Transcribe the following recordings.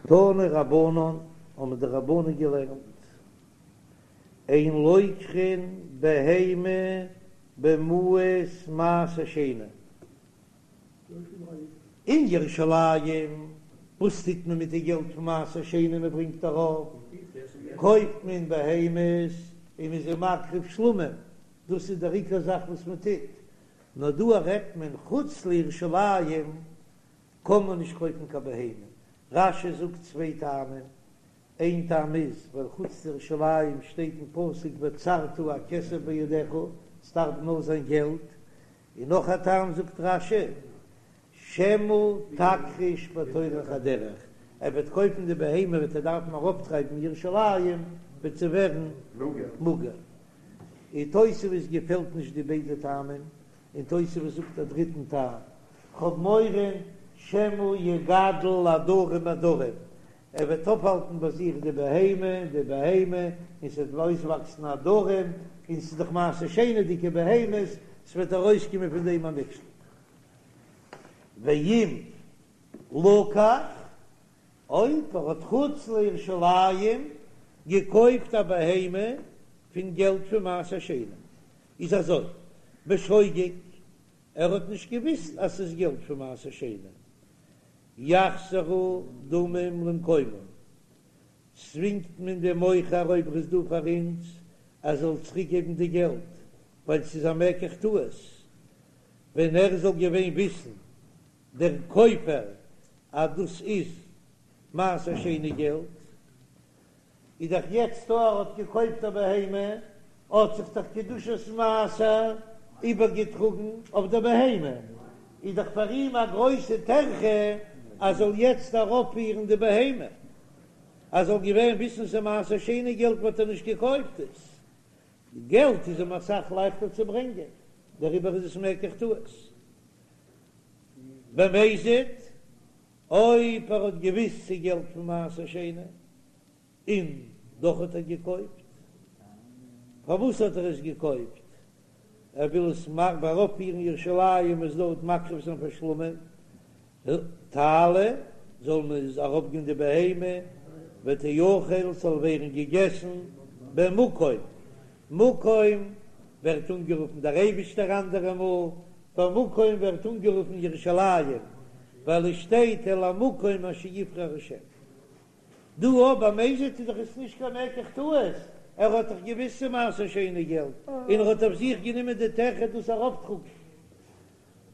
תנו רבנן, האבן די רבנן געלערנט, אין לוקחין בהמה במעות מעשר שני. אין ירושלים, וואס טוט מען מיט די געלט פון מעשר שני מען ברענגט ארויף? קויפט מען בהמות און מען איז זיי מקריב שלמים, דאס איז דער עיקר זאך וואס מען טוט, נאר דא רעדט מען חוץ לירושלים קען מען נישט קויפן קיין בהמה, רש"י זאגט צוויי טעמים, איין טעם איז ווייל חוץ לירושלים שטייט אין פסוק וצרת הכסף בידך, ס'דארף נאר זיין געלט, און נאך א טעם זאגט רש"י, שמא תכחיש בטורח הדרך, ער וועט קויפן די בהמה וועט ער דארפן ארויפטרייבן ירושלים וועט זי ווערן מאגער. און תוספות געפעלט נישט די ביידע טעמים, און תוספות זאגט א דריטן טעם, כ'האב מורא שמא יגדל עדרים עדרים, ער וועט אויפהאלטן ביי זיך די בהמה, די בהמה, און ס'וועט אויסוואקסן עדרים, און ס'איז דאך מעשר שני'דיגע בהמות, ס'וועט ארויסקומען פון דעם א מכשול. ואם לקח, אויב ער האט חוץ לירושלים געקויפט א בהמה פון געלט פון מעשר שני, איז אזוי, בשוגג, ער האט נישט געוויסט אז ס'איז געלט פון מעשר שני, יחזרו דמים למקומם, צווינגט מען דעם מוכר אויב ער איז דא פאר אונז ער זאל צוריק געבן די געלט, ווייל ס'איז א מקח טעות, ווען ער זאל געווען וויסן דער קויפער אז דאס איז מעשר שני געלט, איז דאך יעצט דא ער האט געקויפט א בהמה, האט זיך דאך קדושת מעשר איבערגעטראגן אויף דער בהמה, איז דאך פאר אים א גרויסע טרחה אז זאל יעצט ארויפפירן די בהמה, אז זאל געווען וויסן ס'איז מעשר שני געלט וואלט ער נישט געקויפט עס, געלט איז אים אסאך לייכטער צו ברענגען, דעריבער איז עס מקח טעות. במזיד, אויב ער האט געוויסט ס'איז געלט פון מעשר שני און דאך האט ער געקויפט, פארוואס האט ער עס געקויפט? ער וויל עס ארויפפירן ירושלים עס דארט מקריב זיין פאר שלמים, תעלה, זאל מען עס ארויפגיין די בהמה, ותאכל ס'זאל ווערן געגעסן במקום, מקום ווערט אנגערופן דער אייבישטער אנדערע מאל, במקום ווערט אנגערופן ירושלים, ווייל עס שטייט אל המקום אשר יבחר השם. דא אבער במזיד איז דאך עס נישט קיין מקח טעות, ער האט דאך געוויסט ס'איז מעשר שני געלט, און ער האט אויף זיך גענומען די טרחה דאס ארויפטראגן.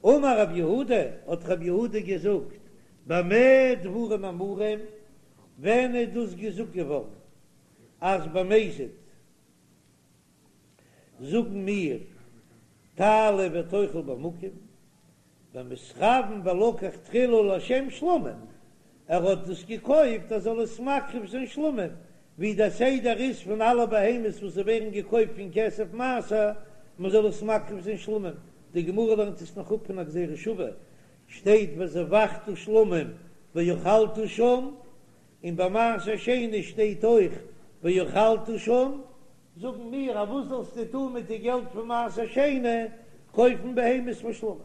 אמר רב יהודה, האט רב יהודה געזאגט, במה דברים אמורים, ווען איז דאס געזאגט געווארן אז במזיד זאגן מיר תעלה ותאכל במקום, במתכוין ולקח תחילה לשם שלמים, ער האט דאס געקויפט ער זאל עס מקריב זיין שלמים, ווי דער סדר איז פון אלע בהמות וואס ווערן געקויפט פון כסף מעשר, מען זאל עס מקריב זיין שלמים, די גמרא לערנט עס נאך אפ פון א גזירה שווה, שטייט וזבחת שלמים ואכלת שם, און ביי מעשר שני שטייט אויך ואכלת שם, זאגן מיר אז וואס זאלסטו טון מיט די געלט פון מעשר שני, קויפן בהמות פאר שלמים.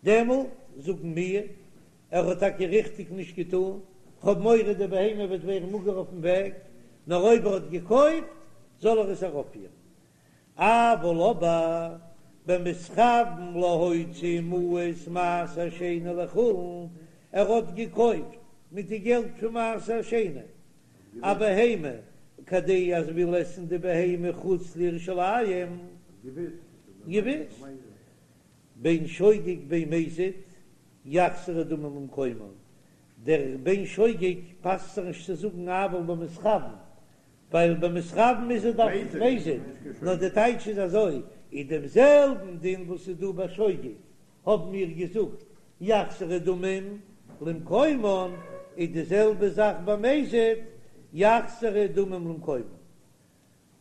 דעמאלט זאגן מיר, ער האט טאקע ריכטיג נישט געטון, כ'האב מורא די בהמה וועט ווערן מאגער אויפן וועג, נאר אויב ער האט געקויפט זאל ער עס ארויפפירן. אבל אבער במתכוין להוציא מעות מעשר שני לחולין, ער האט געקויפט מיט די געלט פון מעשר שני א בהמה כדי אז וויל עסן די בהמה חוץ לירושלים, געוויס בין שוגג בין מזיד יחזרו דמים למקומן, דער בין שוגג פאסט זיך נישט צו זאגן אבל במתכוין, ווייל במתכוין איז ער דאך מזיד, נאר די טייטש איז אזוי, אין דעם זעלבן דין וואס איז דא ביי שוגג האבן מיר געזאגט יחזרו דמים למקומן, איז די זעלבע זאך ביי מזיד יחזרו דמים למקומן,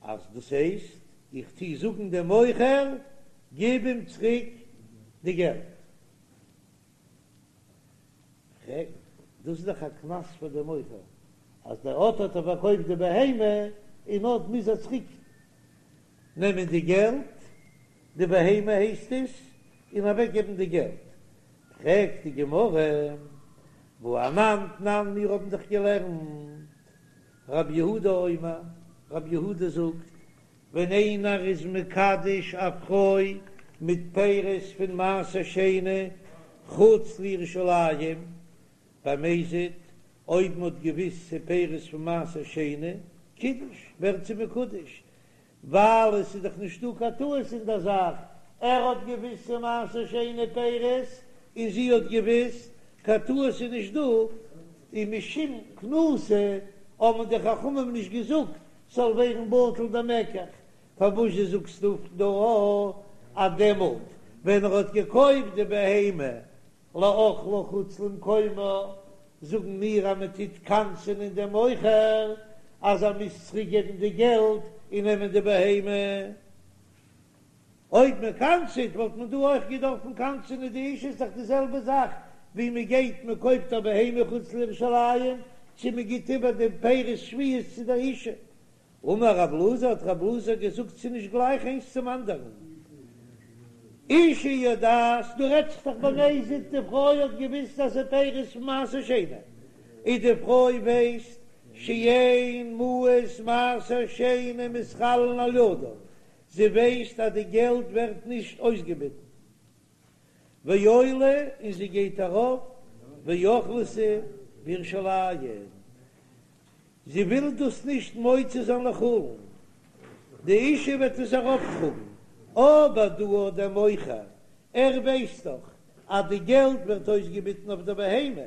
אז דאס הייסט איך טוה זאגן דעם מוכר גיב אים צוריק די געלט. פרעגט, דאס איז דאך א קנס פאר דעם מוכר, אז דער אט האט ער פארקויפט די בהמה, און אט מוז ער צוריק נעמען די געלט, די בהמה הייסט עס, און אוועק געבן די געלט. פרעגט די גמרא, והא אנן תנן מיר האבן דאך געלערנט רב יהודה אומר, רב יהודה זאגט, ווען איינער איז מקדש א פרוי מיט פירות פון מעשר שני חוץ לירושלים, במזיד, אויב מ'האט געוויסט ס'איז פירות פון מעשר שני, קידש, ווערט זי מקודש, ווייל עס איז דאך נישטא קיין טעות אין דער זאך, ער האט געוויסט ס'איז מעשר שני פירות, און זי האט געוויסט, קיין טעות איז נישט דא, און משום קנסא האבן די חכמים נישט געזאגט ס'זאל ווערן בטל דער מקח, פארוואס זשע זאגסטו דא אז דעמאלט ווען ער האט געקויפט די בהמה לאכלה חוץ למקומה, זאגן מיר אז מען טוט קנס'ענען דעם מוכר אז ער מוז צוריק געבן די געלט און נעמען די בהמה. אויב מען קנס'עט וואלט מען דא אויך געדארפן קנס'ענען די אשה, איז דאך די זעלבע זאך ווי מען גייט מען קויפט א בהמה חוץ לירושלים צו מען גיט איבער די פירות שביעית צו דער אשה. אמר רב אלעזר, האט רב אלעזר געזאגט ס'איז נישט גלייך איינס צום אנדערן. אשה יודעת, דא רעדט זיך דאך במזיד, די פרוי האט געוויסט אז ס'איז פירות פון מעשר שני, און די פרוי ווייסט שאין מעות מעשר שני מתחלין על ידה, זי ווייסט אז די געלט ווערט נישט אויסגעביטן. ועולה, און זי גייט ארויף, ואוכלתו בירושלים. זי וויל דאס נישט מוציא זיין לחולין, די אשה וועט עס ארויפטראגן, אבער דא האט דער מוכר, ער ווייסט דאך אז די געלט ווערט אויסגעביטן אויף דער בהמה,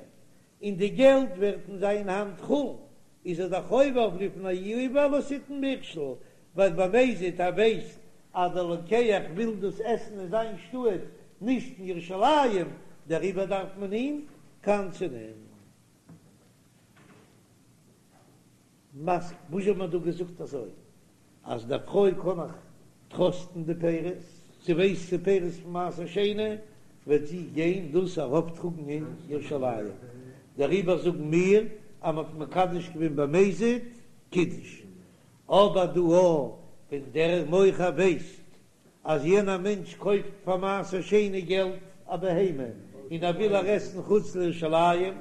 און די געלט ווערט אין זיין האנט חולין, איז ער דאך עובר אויף לפני עור לא תתן מכשול, ווייל במזיד ער ווייסט אז דער לוקח וויל דאס עסן אין זיין שטאט, נישט אין ירושלים, דעריבער דארף מען אים קנס'ענען. מתקיף, וואס האט מען דא געזאגט אזוי אז די פרוי קען איך טראסטן די פירות, זי ווייסט ס'איז פירות פון מעשר שני, וועט זי גיין דאס ארויפטראגן אין ירושלים, דעריבער זאגן מיר אז מ'האט מקדש געווען במזיד קידש, אבער דא ווען דער מוכר ווייסט אז יענער מענטש קויפט פאר מעשר שני געלט א בהמה און ער וויל איר עסן חוץ לירושלים,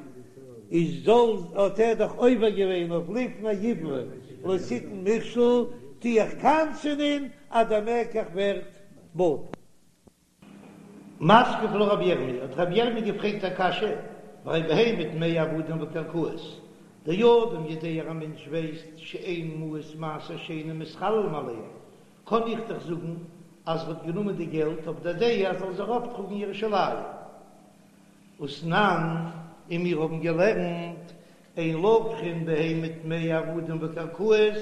איז זאל האט ער דאך עובר געווען אויף לפני עור לא תתן מכשול, טו איך קנס'ענען אז דער מקח ווערט בטל. מתקיף לה רבי ירמי', האט רבי ירמי' געפרעגט א קשיא, והרי בהמה טמאה עבדים וקרקעות, דאדם יודע א מענטש ווייסט שאין מעות מעשר שני מתחללים עליהם, קען איך דאך זאגן אז ער האט גענומען די געלט אויף דער דעה אז ער זאל עס ארויפטראגן ירושלים. ותנן, און מיר האבן געלערנט, אין לוקחין בהמה טמאה עבדים וקרקעות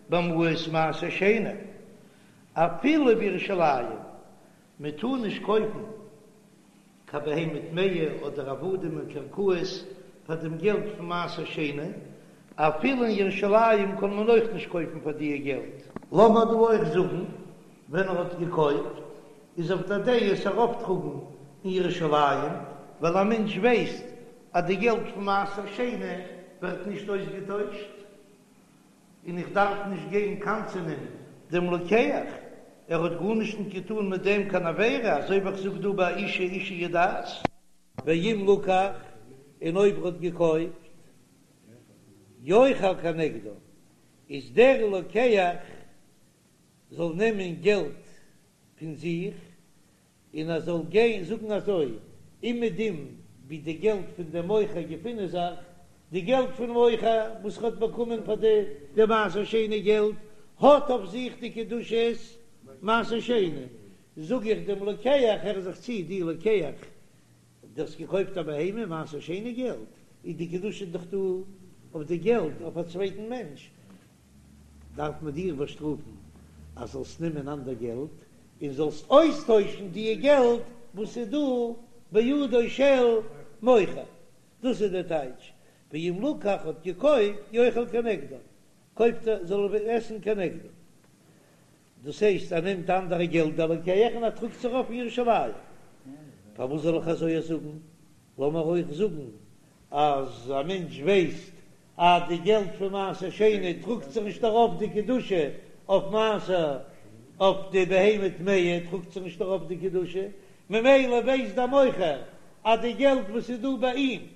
במעות מעשר שני, אפילו בירושלים, מען טאר נישט קויפן קיין בהמה טמאה אדער עבדים און קרקעות פאר דעם געלט פון מעשר שני, אפילו אין ירושלים קען מען אויך נישט קויפן פאר דיע געלט. לאמיר דא אויך זאגן, ווען ער האט געקויפט איז אויף דער דעה עס ארויפטראגן אין ירושלים, ווייל א מענטש ווייסט אז די געלט פון מעשר שני ווערט נישט אויסגעטוישט. און איך דארף נישט גיין קנס'ענען דעם לוקח, ער האט גארנישט נישט געטאן מיט דעם קיין עבירה, אזוי ווי איך זאג דא ביי אשה אשה יודעת. ואם לקח, און אויב ער האט געקויפט, יאכל כנגדה, איז דער לוקח זאל נעמען געלט פון זיך, און ער זאל גיין זאגן אזוי, אומעדום ווי די געלט פון דעם מוכר געפינען זיך, די געלט פון מוכר וואס ער האט באקומען פאר די די מעשר שני געלט, האט אויף זיך די קדושת מעשר שני, זאג איך דעם לוקח, הער זיך צו, דו לוקח, דו האסט געקויפט א בהמה מעשר שני געלט, איז די קדושה דאך דא אויף די געלט אויף א צווייטן מענטש, דארף מען דיר באשטראפן אז זאלסט נעמען אנדער געלט און זאלסט אויסטוישן דיע געלט וואס איז דא בידו של מוכר, דאס איז דער טייטש, ואם לקח האט געקויפט יאכל כנגדה, קויפט ער זאל ער עסן כנגדה, דאס הייסט ער נעמט אנדערע געלט דער לוקח און ער טראגט עס ארויף אין ירושלים, פארוואס זאל איך אזוי זאגן, לאמיר אויך זאגן אז א מענטש ווייסט אז די געלט פון מעשר שני טראגט זיך נישט ארויף די קדושה אויף מעשר, אויף די בהמה טמאה טראגט זיך נישט ארויף די קדושה, ממילא ווייסט דער מוכר אז די געלט וואס איז דא ביי אים.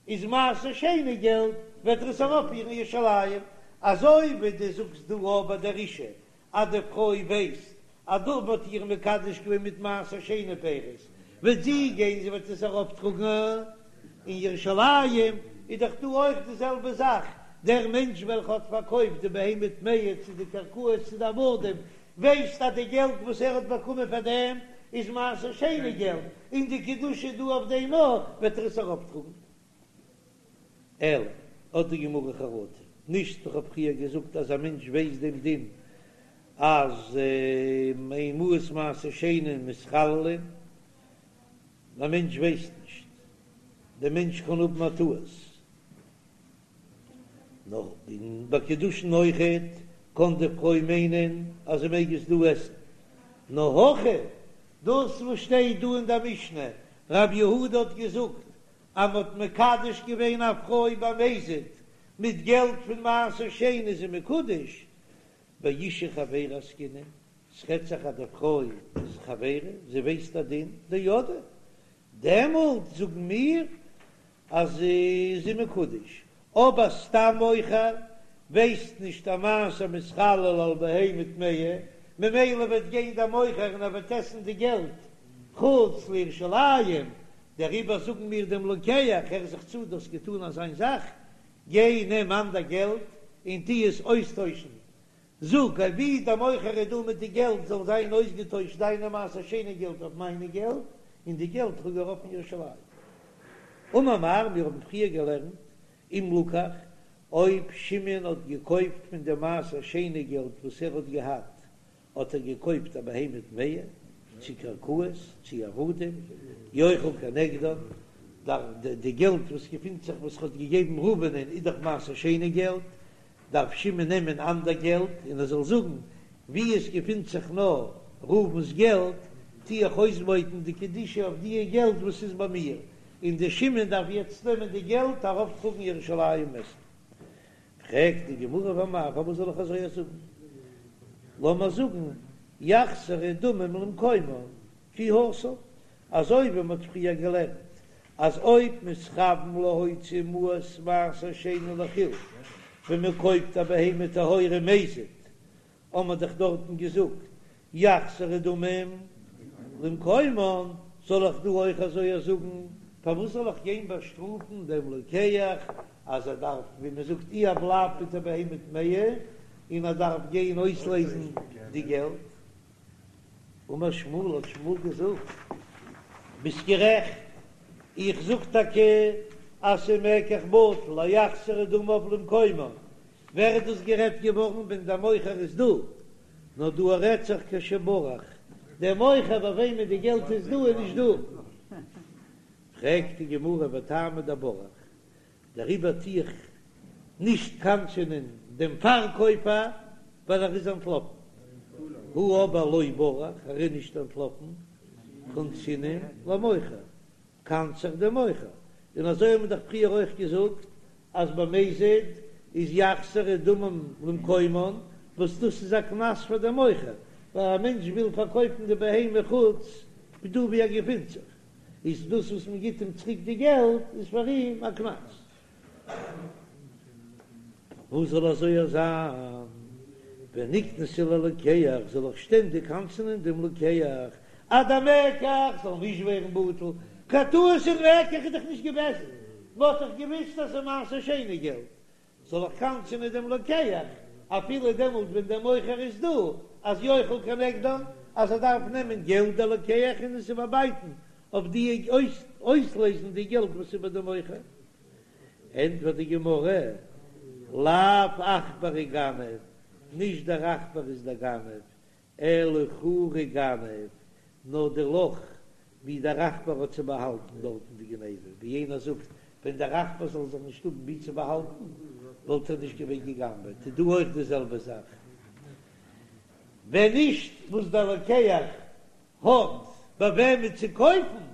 איז מעשר שני געלט, וועט ער עס ארויפפירן ירושלים, אזוי ווי דו זאגסט דא אויך ביי דער אשה אז די פרוי ווייסט אז דא מ'האט איר מקדש געווען מיט מעשר שני פירות, וועט זי גיין זי וועט עס ארויפטראגן אין ירושלים, איז דאך דא אויך די זעלבע זאך, דער מענטש וועלכע האט פארקויפט די בהמה טמאה צו די קרקעות צו די עבדים, ווייסט אז די געלט וואס ער האט באקומען פאר דעם איז מעשר שני געלט, און די קדושה איז דא אויף דעם אויך, וועט ער עס ארויפטראגן. אלא, האט די גמרא חרטה, נישט איך האב פריער געזאגט אז א מענטש ווייסט דעם דין אז אין מעות מעשר שני מתחללין, א מענטש ווייסט נישט, דער מענטש קען האבן א טעות, נאר און ביי קידושין אויכעט קען די פרוי מיינען אז זי מעג עס דא עסן, נאר הכא, דאס וואס שטייט דא אין דער משנה, רב יהודה האט געזאגט אז מ'האט מקדש געווען א פרוי במזיד מיט געלט פון מעשר שני איז זי מקודש, באשה חבירה עסקינן, ס'רעדט זיך אז די פרוי איז חבירה, זי ווייסט א דין, דידעה, דעמאלט זאגן מיר אז זי איז מקודש, אבער סתם מוכר ווייסט נישט אז מעשר מתחלל על בהמה טמאה, ממילא וועט גיין דער מוכר און ער וועט עסן די געלט חוץ לירושלים, דעריבער זאגן מיר דעם לוקח, הער זיך צו, דו האסט געטאן אזיין זאך, גיי נעם אנדער געלט און טו עס אויסטוישן, זאג אז ווי דער מוכר איז דא מיט די געלט זאל זיין אויסגעטוישט דיינע מעשר שני געלט אויף מיינע געלט, און די געלט טראג ארויף אין ירושלים. אמר מר, מיר האבן פריער געלערנט, אם לקח, אויב שמעון האט געקויפט פון די מעשר שני געלט וואס ער האט געהאט, האט ער געקויפט א בהמה טמאה, צו קרקעות, צו עבדים, יאכל כנגדן, די געלט וואס געפינט זיך וואס ער האט געגעבן ראובנ'ען איז דאך מעשר שני געלט, דארף שמעון נעמען אנדער געלט און ער זאל זאגן, וואו עס געפינט זיך נאר ראובן'ס געלט, טו איך אויסבויטן די קדושה אויף דיע געלט וואס איז ביי מיר, און דער שמעון דארף יעצט נעמען די געלט ארויפטראגן ירושלים עסן. פרעגט די גמרא ואמאי, פארוואס זאל איך אזוי זאגן? לאמיר זאגן יחזרו דמים למקומן כי התם, אזוי ווי מ'האט פריער געלערנט אז אויב מתכוון להוציא מעות מעשר שני לחולין, ווען מ'קויפט א בהמה טהורה מזיד, האט מען דאך דארטן געזאגט יחזרו דמים למקומן, זאל איך דא אויך אזוי זאגן? פארוואס זאל איך גיין באשטראפן דעם לוקח אז ער דארף, ווי מען זאגט, אי ער בלייבט מיט א בהמה טמאה און ער דארף גיין אויסלעזן די געלט? אמר שמואל, האט שמואל געזאגט, ביסט גערעכט, איך זאג טאקע אז ס'מקח בטל, אז יחזרו דמיו למקומן, ווער איז דאס גערעדט געווארן ווען דער מוכר איז דא? נאר דא רעדט זיך כשברח, דער מוכר ביי וועמען די געלט איז דא איז נישט דא. פרעגט די גמרא וטעמא דברח, דעריבער טו איך נישט קנס'ענען דעם פארקויפער ווייל ער איז אנטלאפן, הא אבער לא ברח, ער איז נישט אנטלאפן, קנסינן למוכר, קנס איך דעם מוכר, און אזוי האבן מיר דאך פריער אויך געזאגט אז במזיד איז יחזרו דמים למקומן, וואס דאס איז א קנס פאר דעם מוכר, ווייל א מענטש וויל פארקויפן די בהמה חוץ פון דא ווי ער געפינט זיך, איז דאס וואס מען גיט אים צוריק די געלט איז פאר אים א קנס. וואס זאל אזוי זיין? ונקנסיה ללוקח, זאל איך שטענדיג קנס'ענען דעם לוקח אז דער מקח זאל נישט ווערן בטל, קיין טעות אין מקח איז דאך נישט געוועזן, מען האט דאך געוויסט אז ס'איז מעשר שני געלט, זאל איך קנס'ענען דעם לוקח אפילו דעמאלט ווען דער מוכר איז דא, אז יאכל כנגדן, אז ער דארף נעמען געלט דער לוקח און עס איבערבייטן אויף די אויסלעזן די געלט וואס איז ביי דעם מוכר. ענטפערט די גמרא, לאו עכברא גנב, נישט דער עכבר איז דער גנב, אלא חורא גנב, נאר די לאך ווי דער עכבר האט צו באהאלטן דארטן די גניבה, ווי איינער זאגט, ווען דער עכבר זאל זיך נישט האבן ווי צו באהאלטן, וואלט ער נישט געווען גע'גנב'עט, איז דא אויך די זעלבע זאך, ווען נישט וואס דער לוקח האט ביי וועמען צו קויפן,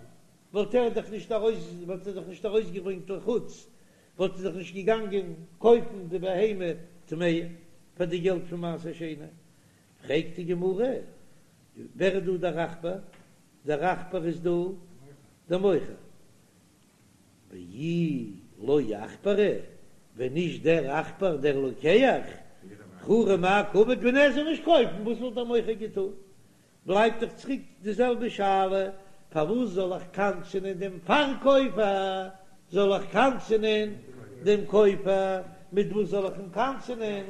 וואלט ער דאך נישט ארויס, וואלט ער דאך נישט ארויסגעברענגט לחוץ, וואלט ער דאך נישט געגאנגען קויפן די בהמה טמאה פאר די געלט פון מעשר שני. פרעגט די גמרא, ווער איז דא דער עכבר? דער עכבר איז דא דער מוכר. ואי לא עכברא, ווען נישט דער עכבר דער לוקח, בחורי מאי קעביד, ווען ער זאל נישט קויפן, וואס וואלט דער מוכר געטון? בלייבט דאך צוריק די זעלבע שאלה, פארוואס זאל איך קנס'ענען דעם פארקויפער, זאל איך קנס'ענען דעם קויפער, מיט וואס זאל איך אים קנס'ענען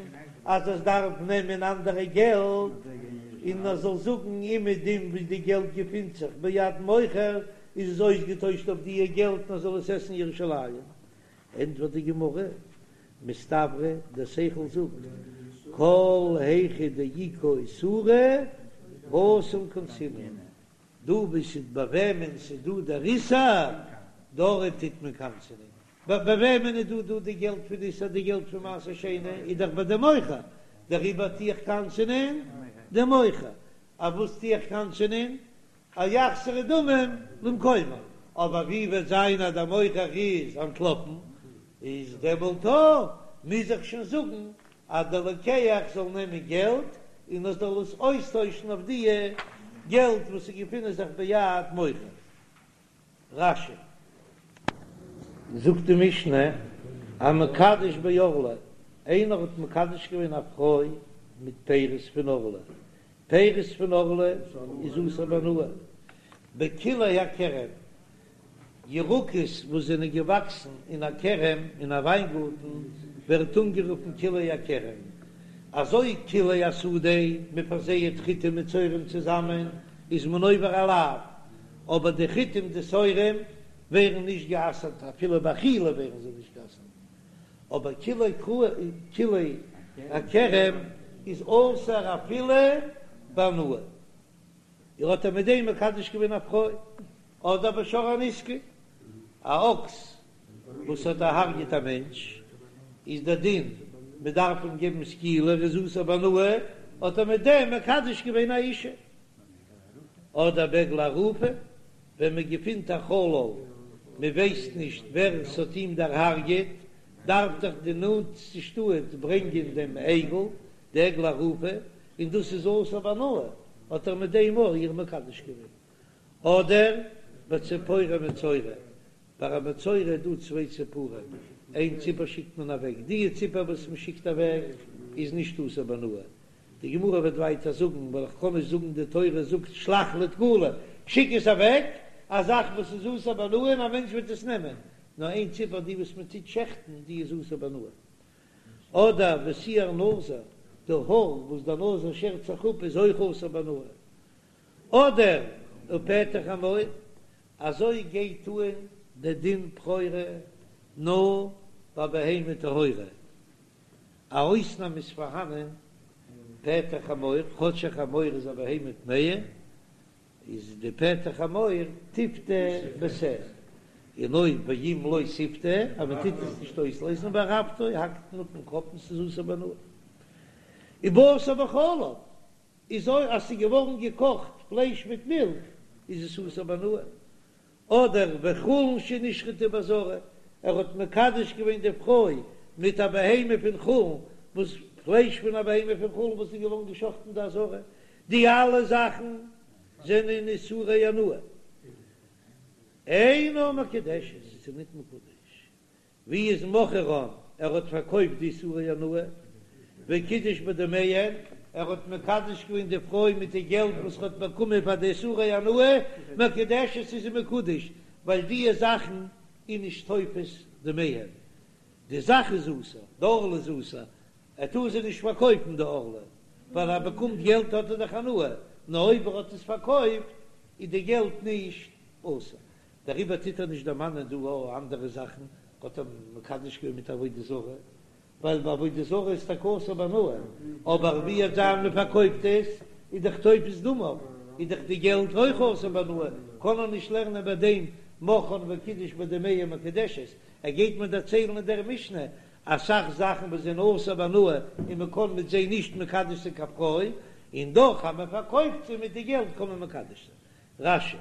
אז עס דארף נעמען אנדערע געלט, און ער זאל זאגן אומעדום ווי די געלט געפינט זיך ביד מוכר איז עס אויסגעטוישט אויף דיע געלט און ער זאל עס עסן ירושלים, ענטפערט די גמרא, מסתברא, דער שכל זאגט, כל היכא דאיכא איסורא, התם קנסינן, דא וואו ס'איז ביי וועמען ס'איז דא דער איסור, דארט טוט מען קנס'ענען, ביי וועמען איז דא דא די געלט פון איסור, די געלט פון מעשר שני איז דאך ביי די מוכר, דעריבער טו איך קנס'ענען די מוכר, אויף וואס טו איך קנס'ענען? אז יחזרו דמים למקומם, אבער ווי וועט זיין אז דער מוכר איז אנטלאפן, איז דעמאלט מוז איך שוין זאגן אז דער לוקח זאל נעמען געלט און ער זאל עס אויסטוישן אויף דיע געלט וואס איז געפינען זיך ביד מוכר. רש"י. זאגט די משנה, המקדש בערלה, איינער האט מקדש געווען א פרוי מיט פירות פון ערלה, פירות פון ערלה איז אסור בהנאה, בכלאי הכרם, ירקות וואס זענען געוואקסן אין א כרם, אין א וויינגארטן, ווערט אנגערופן כלאי הכרם, אזוי כלאי השדה, מען פארזייעט חיטים מיט שעורים צוזאמען, איז מען עובר א לאו, אבער די חיטים די שעורים ווערן נישט גע'אסר'ט, אפילו באכילה ווערן זיי נישט גע'אסר'ט. אבער כלאי הכרם איז אסור אפילו בהנאה, ער האט ער מיט דעם מקדש געווען א פרוי, אדער בשור הנסקל, א אקס וואס האט דערהרגעט א מענטש, איז דער דין מען דארף אים געבן סקילה, ער איז אסור בהנאה, האט ער מיט דעם מקדש געווען א אישה. אדער בעגלה ערופה, ווען מען געפינט א חלל, מען ווייסט נישט ווער עס האט אים דערהארגעט, דארף דאך די נאנטסטע שטאט ברענגען דעם עגל, די עגלה ערופה, און דאס איז אסור בהנאה, האט ער מיט דעם אויך איר מקדש געווען. אדער בציפורי מצורע, ביי א מצורע איז דא צוויי ציפורים, איין ציפור שיקט מען אוועק, די ציפור וואס מען שיקט אוועק איז נישט אסור בהנאה, די גמרא וועט ווייטער זאגן, ווייל איך קען נישט זאגן די תורה זאגט שלח לתקלה, שיק עס אוועק, א זאך וואס איז אסור בהנאה און א מענטש וועט עס נעמען, נאר איין ציפור די וואס מען טוט שעכטן די איז אסור בהנאה. אדער ושער נזיר, די האר וואס דער נזיר שערט זיך אפ איז אויך אסור בהנאה. אדער ופטר חמור, אזוי גייט אן די דין בכורה נאר ביי בהמה טהורה. א אויסנאם איז פארהאנען, פטר חמור, כאטש א חמור איז א בהמה טמאה, איז די פטר חמור תפדה בשה, און אויב ואם לא תפדה, אז מען טוט עס נישט אויסלייזן וערפתו, האקט מען אפ דעם קאפ און ס'איז אסור בהנאה. ובשר בחלב, איז אויך אז ס'איז געווארן געקאכט פלייש מיט מילך איז עס אסור בהנאה. אדער וחולין שנשחטו בעזרה, ער האט מקדש געווען די פרוי מיט א בהמה פון חולין, וואס פלייש פון א בהמה פון חולין וואס איז געווארן געשחטן אין די עזרה, די אלע זאכן זענען איסורי הנאה, אינה מקודשת, עס איז ניט מקודש. ווי איז מכרן, ער האט פארקויפט די איסורי הנאה, וקידש בדמיהן, ער האט מקדש געווען די פרוי מיט די געלט וואס ער האט באקומען פאר די איסורי הנאה, מקודשת איז זי מקודש, ווייל די זאכן איז נישט תופס דמיהן, די זאך איז אסור, די ערלה איז אסור, ער טאר זי נישט פארקויפן די ערלה, ווייל ער באקומט געלט האט ער דאך הנאה, נאר אויב ער האט עס פארקויפט איז די געלט נישט אסור. דעריבער טוט ער נישט דערמאנען דא אויך אנדערע זאכן, האט ער מקדש געווען מיט עבודה זרה, ווייל ביי עבודה זרה איז טאקע אסור בהנאה, אבער ווי וועט זיין מען פארקויפט עס, איז דאך תופס דמיו, איז דאך די געלט אויך אסור בהנאה, קען ער נישט לערנען ביי דעם מכרן וקידש בדמיהן מקודשת, ער גייט מיר דערציילן אין דער משנה אסאך זאכן וואס זענען אסור בהנאה און מען קען מיט זיי נישט מקדש זיין קיין פרוי, און דאך אז מען פארקויפט זיי מיט די געלט קען מען מקדש זיין. רש"י.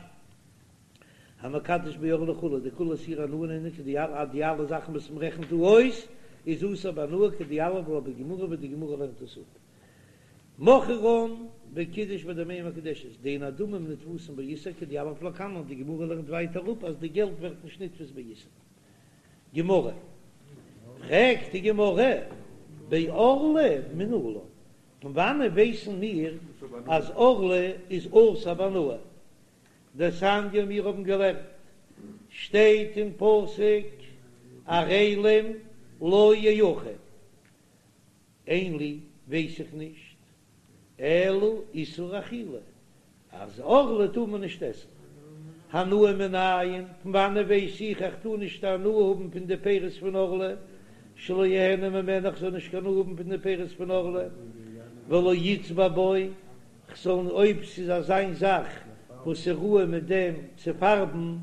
המקדש בערלה וכו', דכולהו איסורי הנאה נינהו כדיליף אז די אלע זאכן וואס מען רעכנט דא אויס איז אסור בהנאה כדיליף לה בגמרא ווי די גמרא לערנט עס אפ. מכרן וקידש בדמיהן מקודשת, דאין הדמים נתפסין באיסור כדיליף לקמן, די גמרא לערנט ווייטער אפ אז די געלט ווערט נישט נתפס באיסור. גמרא, פרעגט די גמרא, בערלה מנלן, פון וואנען ווייסן מיר אז ערלה איז אסור בהנאה? דתניא מיר האבן געלערנט, שטייט אין פסוק ערלים לא יאכל, אין לי ווייס איך נישט, אלא איסור אכילה, אז ערלה טאר מען נישט עסן. הנאה מנין, פון וואנען ווייס איך איך טאר נישט הנאה האבן פון די פירות פון ערלה, שלא יהנה ממנה איך זאל נישט קיין הנאה האבן פון די פירות פון ערלה, ולא יצבע בו, כ'זאל אויב ס'איז אזיין זאך וואס איז ראוי מיט דעם צו פארבן,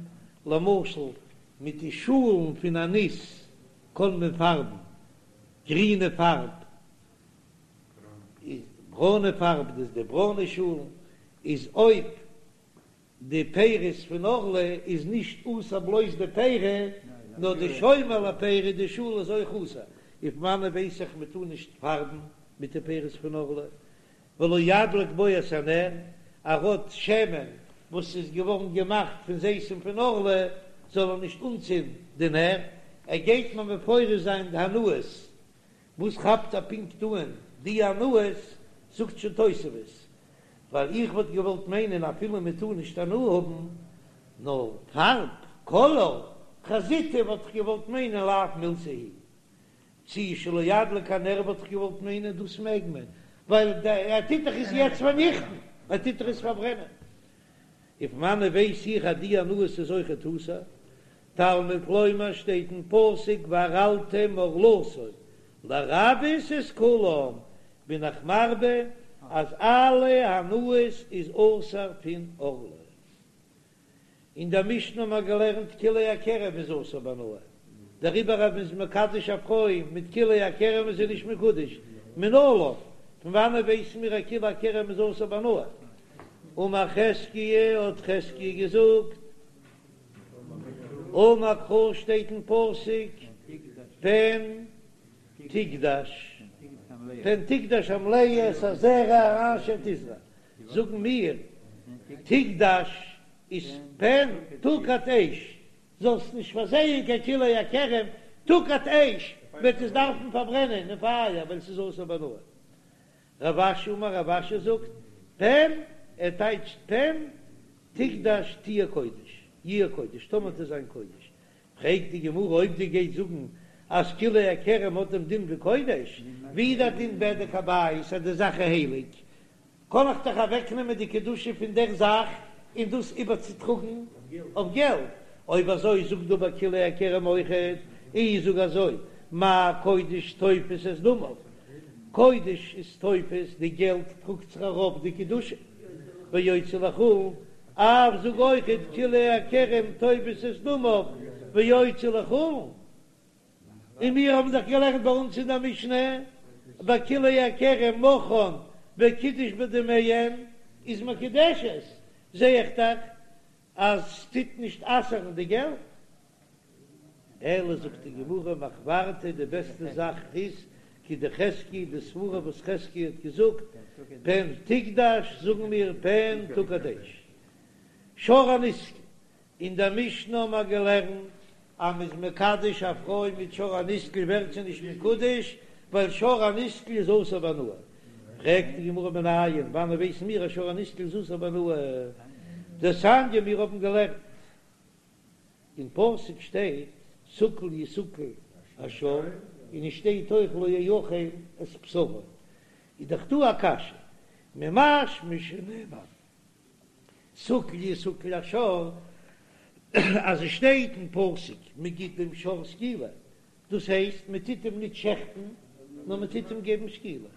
למשל מיט די שאלן פון א ניס קען מען פארבן גרינע פארב, איז ברוינע פארב דאס די ברוינע שאלן, איז אויב די פירות פון ערלה איז נישט אסור בלויז די פירי, נאר די שומר לפירי די שאל איז אויך אסור, און פון וואנען ווייס איך מען טאר נישט פארבן מיט די פירות פון ערלה, ולא ידליק בו את הנר, ער האט שמן וואס איז געווארן געמאכט פון זיתים פון ערלה, זאל ער נישט אנצינדן די נר, ער גייט מיר מפרש זיין די הנאות, וואס כאפט ער פונקט אן די הנאות, זאגט שוין תוספות, ווייל איך וואלט געוואלט מיינען אפילו מען טאר נישט הנאה האבן, נאר פארב, קאלאר, חזיתא וואלט איך געוואלט מיינען לאו מילתא היא צי שלא ידליק הנר וואלט איך געוואלט מיינען דאס מעג מען, ווייל ער טוט דאך עס יעצט פארניכטן, ער טוט דאך עס פארברענען. און פון וואנען ווייס איך אז די הנאות איז אויכעט אסור? תלמוד לומר שטייט אין פסוק וערלתם ערלתו לרבות את כולם, בין איך מרבה אז אלע הנאות איז אסור פון ערלה. אין דער משנה האבן מיר געלערנט כלאי הכרם איז אסור בהנאה, דעריבער אז מ'איז מקדש א פרוי מיט כלאי הכרם איז זי נישט מקודש, מנלן, פון וואנעט ווייסן מיר אז כלאי הכרם איז אסור בהנאה? אמר חזקיה, האט חזקיה געזאגט, אמר קרא שטייט אין פסוק פן תקדש, פן תקדש המלאה את הזרע אשר תזרע, זאגן מיר תקדש איז פן תוקד אש, זאלסט נישט פארזייען קיין כלאי הכרם, תוקד אש וועט עס דארפן פארברענען אין פייער ווייל ס'איז אסור בהנאה. רב אשי אמר רב אשי זאגט פן ער טייטשט פן תקדש תהיה קודש יהיה קודש טאמער וועט עס זיין קודש פרעגט די גמרא אויב דו גייסט זאגן אז כלאי הכרם האט דעם דין ווי קודש ווי איז דער דין בדק הבית אז די זאך איז הייליג קען איך דאך אוועקנעמען די קדושה פון דער זאך און דאס איבערצוטראגן אויף געלט, אויב אזוי זאג דא ביי כלאי הכרם אויכעט, אי זאג אזוי, מה קודש תופס את דמיו, קודש איז תופס, די געלט טראגט זיך ארויף די קדושה, ויוצא לחולין, אף זאג אויכעט כלאי הכרם תופס את דמיו ויוצא לחולין. און מיר האבן דאך געלערנט ביי אונז אין דער משנה, ביי כלאי הכרם מכרן וקידש בדמיהן איז מקודשת, זע איך דאך אז ס'טוט נישט אסר'ן די געלט. אלא זאגט די גמרא מחוורתא די בעסטע זאך איז כדחזקיה די סברה וואס חזקיה האט געזאגט פן תקדש זאגן מיר פן תוקד אש שור הנסקל אין דער משנה האבן מיר געלערנט אז מ'איז מקדש א פרוי מיט שור הנסקל ווערט זי נישט מקודש, ווייל שור הנסקל איז אסור בהנאה. פרעגט די גמרא מנין, וואנען ווייסן מיר אז שור הנסקל איז אסור בהנאה? דתניא מיר האבן געלערנט אין פסוק שטייט סקול יסקל השור, און עס שטייט אויך לא יאכל את בשרו, איז דאך דא א קשיא, ממשמע שנאמר סקול יסקל השור, אז עס שטייט אין פסוק מען גיט דעם שור סקילה, דאס הייסט מען טוט אים ניט שעכטן, נאר מען טוט אים געבן סקילה.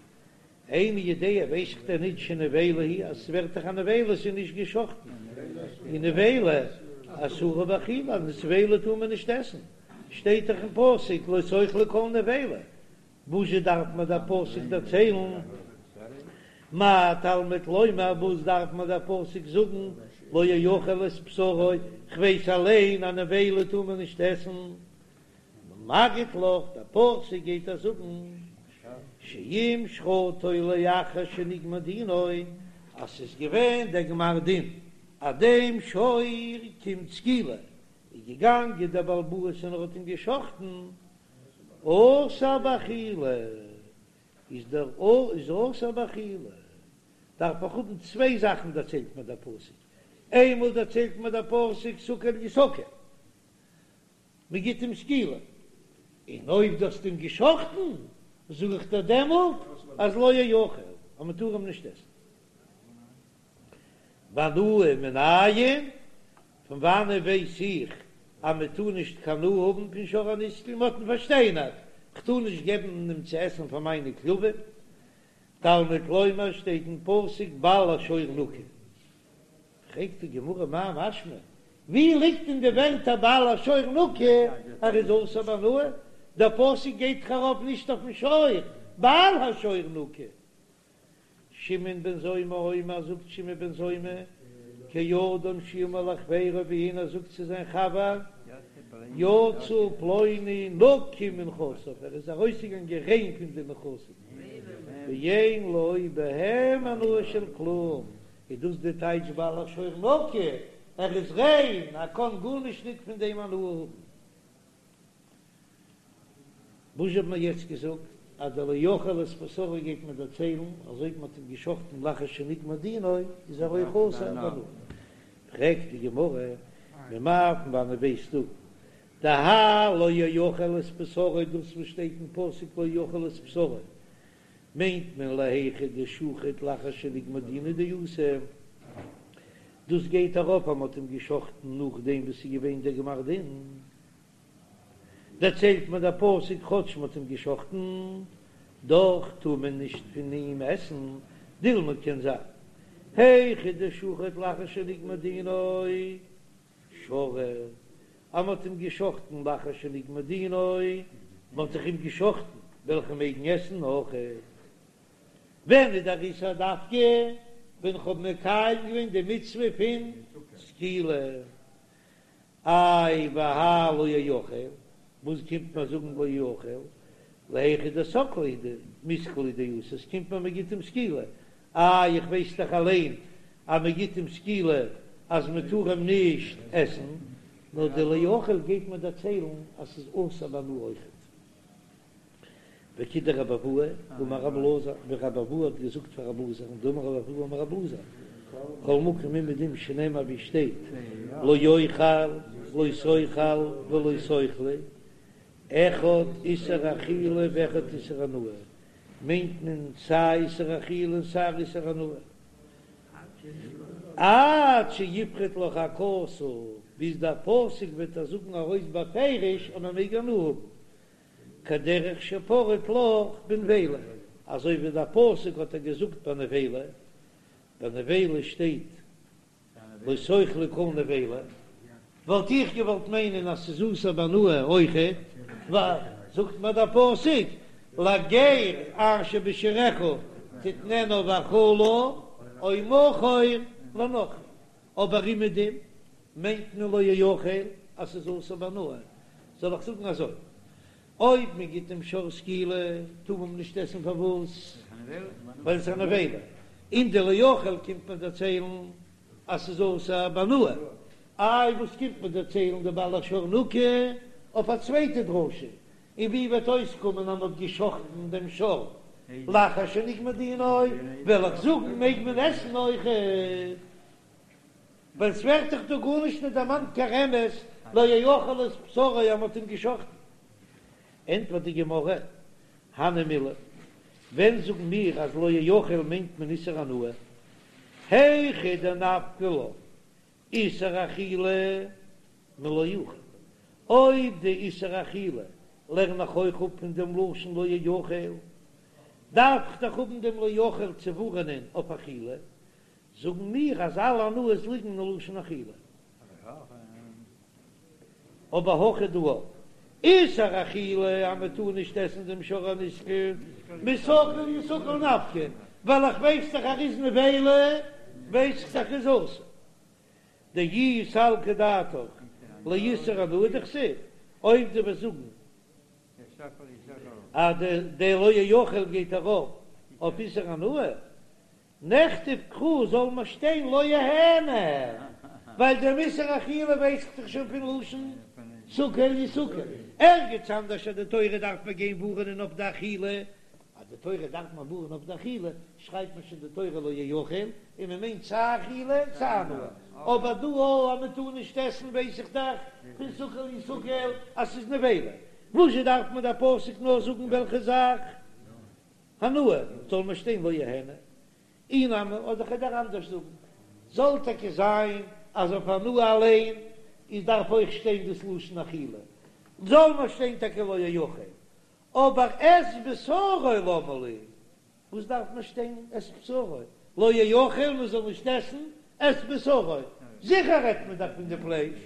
איני יודע ווייס איך דען ניט שנבילה היא אז עס ווערט דאך א נבילה, עס איז נישט געשאכטן, און נבילה אסורה באכילה, אז נבילה טאר מען נישט עסן, שטייט דאך אין פסוק לא תאכלו כל נבילה, וואזשע דארף מיר דער פסוק דערציילן? מה תלמוד לומר, וואס דארף מיר דער פסוק זאגן, לא יאכל את בשרו, כ'ווייס אליין אז נבילה טאר מען נישט עסן. מגיד לך, דער פסוק גייט דיר זאגן, שאם שחטו לאחר שנגמר דינו, אז ס'איז געווען דער גמר דין אז דעם שור קומט סקילה. איז געגאנגען דער בעל הבית און ער האט אים געשחטן, אסור באכילה, איז דער איז אסור באכילה, דארף איך האבן צוויי זאכן דערציילט מיר דער פסוק, איינמאל דערציילט מיר דער פסוק סקול יסקל, מען גיט אים סקילה, און אויב דו האסט אים געשחטן, זאג איך דיר דעמאלט אז לא יאכל, אז מען טאר אים נישט עסן. והנאה מנין, פון וואנען ווייס איך אז מען טאר נישט קיין הנאה האבן פון שור הנסקל, מען האט אים פארשטיינערט, כ'טאר נישט געבן אים צו עסן פאר מיינע כלבים, תלמוד לומר שטייט אין פסוק בעל השור נקי. פרעגט די גמרא מאי משמע, ווי ליגט אין די ווערטער בעל השור נקי אז ער איז אסור בהנאה? דער פסוק גייט דאך ארויף נישט אויפן שור, בעל השור נקי. שמעון בן זומא אומר, זאגט שמעון בן זומא, כאדם שאמר לחבירו ווי איינער זאגט צו זיין חבר, יצא פלוני נקי מנכסיו, ער איז ארויסגעגאנגען ריין פון די נכסים, ואין לו בהם הנאה של כלום, איז דאס די טייטש בעל השור נקי, ער איז ריין, ער קען גארנישט ניט פון דעם הנאה האבן. וואס האט מען יעצט געזאגט אז דער לא יאכל את בשרו גייט מען דערציילן אז אויב מען האט אים געשחטן לאחר שנגמר דינו איז ער אויך אסור בהנאה. פרעגט די גמרא, ממאי פון וואנעט ווייסטו דהאי לא יאכל את בשרו דאס וואס שטייט אין פסוק לא יאכל את בשרו מיינט מען להיכא דשחט לאחר שנגמר דינא דאתא, דאס גייט ארויף אז מען האט אים געשחטן נאכדעם וואס ס'איז געווען דער גמר דין. דערציילט מיר דער פסוק כאטש מ'האט אים געשחטן, דאך טאר מען נישט פון אים עסן, דילמא קען זיין היכא דשחט לאחר שנגמר דינו שרי, אז מ'האט אים געשחטן לאחר שנגמר דינו, מ'האט דאך אים געשחטן, וועל איך אים מעגן עסן אויכעט. ווען איז דער איסור דווקא ווען כ'האב מקיים געווען די מצוה פון סקילה? איי והאי לא יאכל, וואס קומט מיר זאגן לא יאכל, להיכא דסקליה דמיסקל הוא דאתא, עס קומט מיר מען גיט אים סקילה, איי איך ווייס דאך אליין אז מען גיט אים סקילה אז מען טאר אים נישט עסן, נאר די לא יאכל גייט מיר דערציילן אז ס'איז אסור בהנאה אויכעט. וכדרבי אבהו אמר רבי אלעזר, ווי רבי אבהו האט געזאגט פאר רבי אלעזר, דאמר רבי אבהו אמר רבי אלעזר, כל מקום אומעדום שנאמר ווי שטייט לא יאכל לא תאכל ולא תאכלו, אחד איסור אכילה ואחד איסור הנאה, מיינט מען סיי איסור אכילה און סיי איסור הנאה. עד שיפרוט לך הכתוב, ביז דער פסוק וועט דיר זאגן ארויס בפירוש אז מען מעג הנאה האבן. כדרך שפרט לך בנבילה, אזוי ווי דער פסוק האט ער געזאגט ביי נבילה, ביי נבילה שטייט לא תאכלו כל נבילה, וואלט איך געוואלט מיינען אז ס'איז אסור בהנאה אויכעט, ווייל זאגט מיר דער פסוק לגר אשר בשעריך תתננה ואכלה או מכור לנכרי, אבער אומעדום מיינט מען לא יאכל אז ס'איז אסור בהנאה, זאל איך זאגן אזוי, אויב מען גיט דעם שור סקילה טאר מען נישט עסן פארוואס? ווייל עס איז א נבילה, און די לא יאכל קומט מען דערציילן אז ס'איז אסור בהנאה, איי וואס קומט מען דערציילן די בעל השור נקי אויף א צווייטע דרשה, און ווי וועט אויסקומען אז מען האט געשחטן דעם שור לאחר שנגמר דינו, וועל איך זאגן מעג מען עסן אויכעט. ווייל ס'ווערט דאך דא גארנישט נישט דערמאנט קיין רמז לא יאכל את בשרו אז מ'האט אים געשחטן. ענטפערט די גמרא, הני מילי, ווען זאגן מיר אז לא יאכל מיינט מען איסור הנאה? היכא דנפקא לן איסור אכילה מלא יאכל, אויב די איסור אכילה לערן איך אויך אפ פון דעם לשון לא יאכל, דארף איך דאך האבן דעם לא יאכל צו ווארענען אויף אכילה, זאגן מיר אז אלע הנאות ליגן אין לשון אכילה. אבער הכא דא איסור אכילה אז מען טאר נישט עסן דעם שור הנסקל מסקול יסקל נפקא, ווייל איך ווייס דאך אז ער איז נבילה ווייס איך דאך איז אסור. דאי סלקא דעתך לאיסור הנאה דכתיב, אויב דו וועסט זאגן אז די לא יאכל גייט ארויף אויף איסור הנאה, נכתוב קרא זאל מען שטיין לא יהנה. ווייל דעם איסור אכילה ווייס איך דאך שוין פון לשון סקול יסקל. ערגעץ אנדערש אז די תורה דארף מען גיין ווארענען אויף די אכילה, אז די תורה דארף מען ווארענען אויף די אכילה, שרייבט מען שוין די תורה לא יאכל, און מען מיינט סיי אכילה סיי הנאה. אבער דא אויך אז מען טאר נישט עסן ווייס איך דאך פון סקול יסקל אז ס'איז נבילה. וואזשע דארף מיר דער פסוק נאר זאגן וועלכע זאך? הנאה, זאל מיר שטיין לא יהנה. אי נמי, אדער כ'וועל דיר אנדערש זאגן, זאל טאקע זיין אז אויף הנאה אליין איז דארף אויך שטיין דאס לשון אכילה, זאל מיר שטיין טאקע לא יאכל, אבער את בשרו למה לי, וואס דארף מיר שטיין את בשרו, לא יאכל מען זאל נישט עסן את בשרו, זיכער רעדט מען דאך פון די פלייש,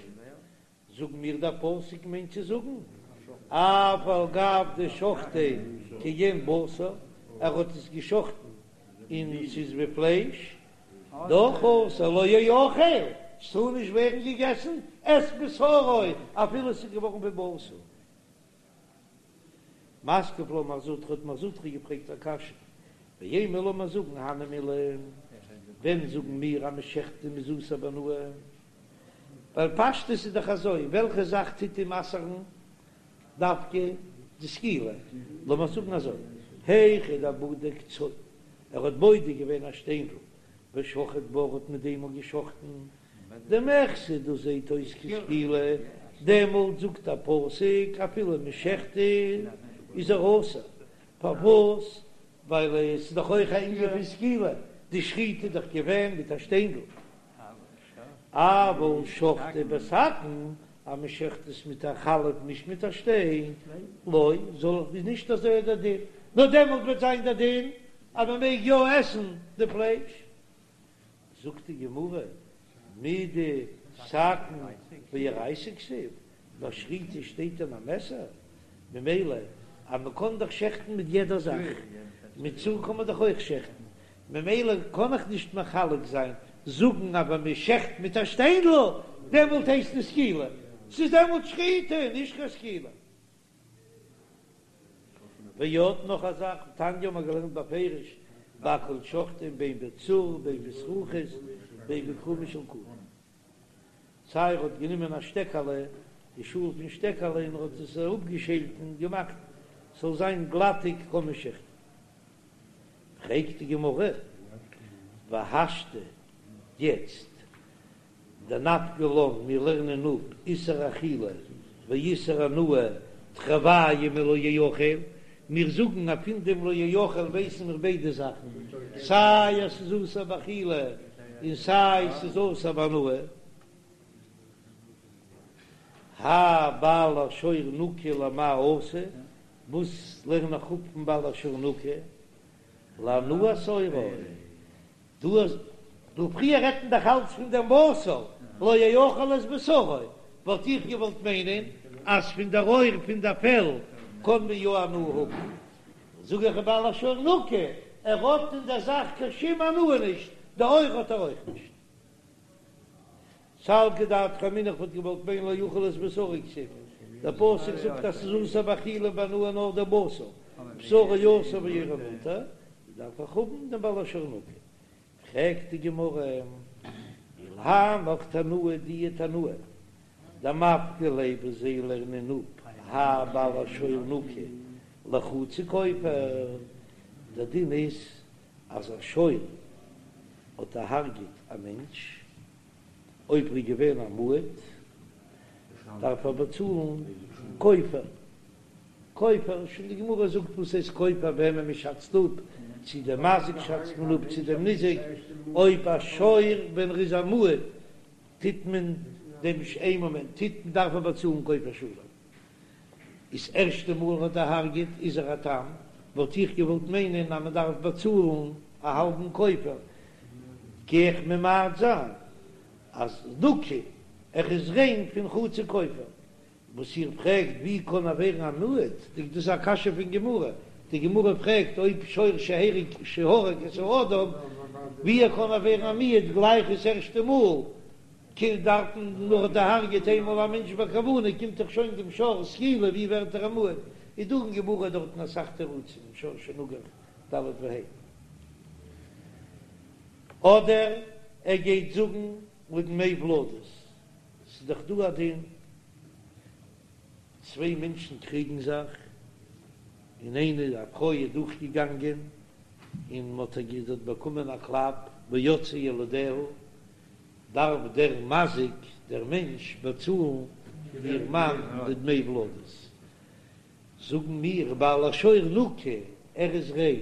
זאגן מיר דער פסוק מיינט צו זאגן אף על גב דשחטיה כעין בשר, ער האט עס געשחטן און ס'איז ווי פלייש, דאך אסור לא יאכל, ס'טאר נישט ווערן געגעסן את בשרו אפילו ס'איז געווארן ווי בשר. מתקיף לה מר זוטרא האט מר זוטרא געפרעגט א קשיא, ואימא לאמיר זאגן הני מילי, ווען זאגן מיר אז מ'שחט און מ'איז אסור בהנאה? ווייל פשטות איז דאך אזוי, וועלכע זאך טוט אים אסר'ן דווקא די סקילה? לאמיר זאגן אזוי, היכא דבדק צור, ער האט בודק געווען א שטיינדל, ושחט בה, האט מיט דעם געשחטן, דמיחזי דאס זעהט אויס כסקילה, דעמאלט זאגט א פסוק אפילו מ'שחט איז ער אסור, פארוואס? ווייל עס איז דאך אויך א ענין פון סקילה, די שחיטה איז דאך געווען מיט א שטיינדל. אבל שחטיה בסכין, אז מען שעכט עס מיט א חלף נישט מיט א שטיין, לא, זאל איך איז נישט אזוי דער דין, נאר דעמאלט וועט זיין דער דין אז מען מעג יא עסן די פלייש. זאגט די גמרא, מידי סכין באורייתא כתיב, ביי שחיטה שטייט דען א מעסער, ממילא אז מען קען דאך שעכטן מיט יעדע זאך, מיט צור קען מען דאך אויך שעכטן, ממילא קען איך נישט מחלק זיין, זאגן אז ווען מען שעכט מיט א שטיינדל דעמאלט הייסט עס סקילה, ס'איז דעמאלט שחיטה נישט קיין סקילה. ועוד נאך א זאך, תניא האבן מיר געלערנט בפירוש, בכל שוחטין בין בצור בין בזכוכית בין בכרומה של קנה. סיי ער האט גענומען א שטעקעלע, די שאל פון שטעקעלע, און ער האט עס אראפגעשעלט און געמאכט ס'זאל זיין גלאטיג קען מען שעכטן. פרעגט די גמרא, והשתא, יעצט דנפקא לן, מיר לערנען אפ איסור אכילה ואיסור הנאה תרוייהו מלא יאכל, מיר זאגן אז פון דעם לא יאכל ווייסן מיר ביידע זאכן, סיי אז ס'איז אסור באכילה און סיי ס'איז אסור בהנאה. האי בעל השור נקי למאי אתא, וואס לערן איך אפ פון בעל השור נקי? להנאת עורו. דא אז דא פריער רעדט מען דאך אלץ פון דעם בשר, לא יאכל את בשרו, וואלט איך געוואלט מיינען אז פון דער עור פון דער פעל קען מען יא הנאה האבן, זאג איך בעל השור נקי, ער האט אין דער זאך קיין שום הנאה נישט, די עור האט ער אויך נישט. סלקא דעתך אמינא איך וואלט געוואלט מיינען לא יאכל את בשרו כתיב, דער פסוק זאגט אז ס'איז אסור באכילה ובהנאה נאר דער בשר, בשרו אסור ועורו מותר, דארף איך האבן דעם בעל השור נקי. פרעגט די גמרא, ולהנך תנאי די תנאי דמפקי ליה וואס זיי לערנען אפ האי בעל השור נקי לחצי כופר, דער דין איז אז א שור האט דערהרגעט א מענטש, אויב ער איז געווען א מועד דארף ער באצאלן כופר, כופר, שוין די גמרא זאגט וואס הייסט כופר וועמען מען שאצט אפ, צו דעם מזיק שאצט מען אפ צו דעם ניזק, אויב א שור ווען ער איז א מועד טוט מען דעם איין מאמענט טוט מען דארף ער באצאלן כופר שלם. איז ערשטע מאל האט דערהרגעט איז ער א תם, וואלט איך געוואלט מיינען אז מען דארף באצאלן א האלבן כופר, גיי איך ממעט זיין אז נקי ער איז ריין פון חצי כופר. וואס איר פרעגט ווי קען ער ווערן א מועד, דאס איז א קשיא פון גמרא, די גמרא פרעגט אויב שור שהרג שהרג את האדם ווי ער קען ער ווערן א מועד גלייך דאס ערשטע מאל, קינד דארפן נאר דערהרגעט איינמאל א מענטש בכוונה קומט דאך שוין דעם שור סקילה ווי ווערט ער א מועד? איז דא אין גמרא דארטן אסאך תירוצים אין שור שנגח ד' וה'. אדער ער גייט זאגן. לדמי ולדות, ס'איז דאך דא א דין, צוויי מענטשן קריגן זיך, און איינע א פרוי איז דורכגעגאנגען און מ'האט איר זי האט באקומען א קלאפ ויצאו ילדיה, דארף דער מזיק, דער מענטש, באצאלן איר מאן די דמי ולדות. זאגן מיר בעל השור נקי, ער איז ריין,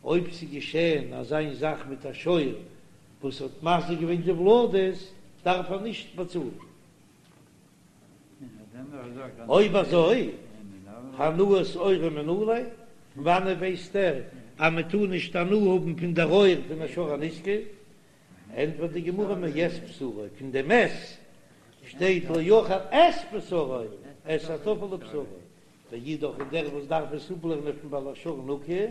אויב ס'איז געשען אזא זאך מיט א שור וואס האט מזיק געווען די ולדות, דארף ער נישט באצאלן. אויב אזוי, הנאת עורו מנא ליה, פון וואנעט ווייסט ער אז מען טאר נישט הנאה האבן פון דער עור פון א שור הנסקל? ענטפערט די גמרא מאת בשרו, פון דעם את שטייט לא יאכל את בשרו, את הטפל לבשרו, ואידך און דער וואס דארף עס אפלערנען פון בעל השור נקי,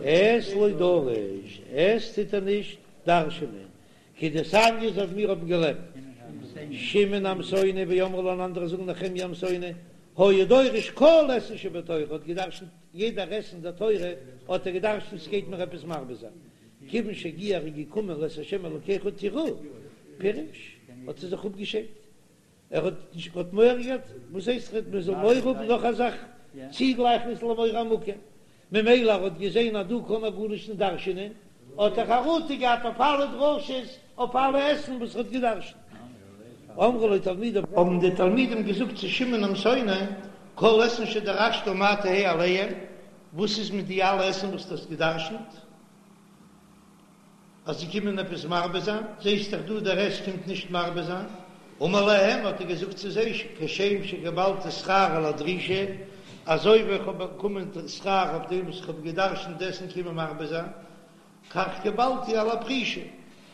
את לא דריש, את טוט ער נישט דרש'ענען, כדתניא אזוי ווי מיר האבן געלערנט, שמעון העמסוני ואמרי לה און אנדערע זאגן נחמיה העמסוני, היה דורש כל אתין שבתורה, האט געדרשנט יעדער את אין דער תורה האט ער געדרשנט ס'גייט מיר עפעס מרבה זיין, כיוון שהגיע ער איז געקומען לאת השם אלקיך תיראו, פירש, האט ער זיך אפגעשיידט, ער האט נישט האט מורא געהאט, וואס הייסט מען זאל מורא האבן נאך א זאך צוגלייכן עס למורא המקום, ממילא ער האט געזען אז דא קען ער גארנישט נישט דרש'ענען, האט ער חרטה געהאט אויף אלע דרשות, אויף אלע את'ן וואס ער האט געדרש'נט. אמרו לו תלמידיו, האבן די תלמידים געזאגט צו שמעון העמסוני, כל אתין שדרשת מה תהא עליהם, וואס איז מיט די אלע את'ן וואס דו האסט געדרש'נט? אז זיי קומען עפעס מרבה זיין, זעסט דאך דא דער את קומט נישט מרבה זיין, אמר להם האט ער געזאגט צו זיי, כשם שקיבלתי שכר על הדרישה, אזוי ווי איך האב באקומען שכר אויף דעם וואס איך האב געדרשנט די את'ן קומען מרבה זיין, כך קיבלתי על הפרישה,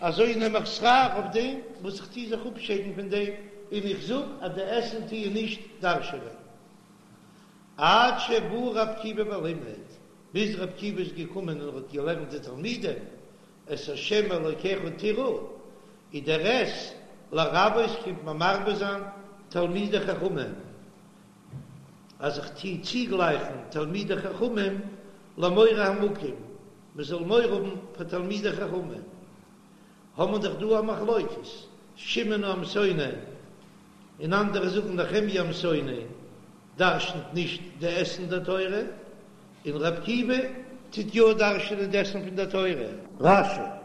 אזוי נעם איך שכר אויף דעם וואס איך טו זיך אפשיידן פון דעם, און איך זאג אז די את'ן טוען נישט דרש'ענען. עד שבא רבי עקיבא ולימד, ביז רבי עקיבא איז געקומען און האט געלערנט די תלמידים את ה' אלוקיך תירא, איז דער את לרבות קומט מען מרבה זיין תלמידי חכמים, אז איך טוה צוגלייכן תלמידי חכמים למורא המקום, מען זאל מורא האבן פאר תלמידי חכמים, האבן מיר דאך דא א מחלוקת, שמעון העמסוני און אנדערע זאגן נחמיה העמסוני דרשנ'ט נישט די את'ן די תורה, און ר' עקיבא טוט יא דרש'נען די את'ן פון די תורה. רש"י.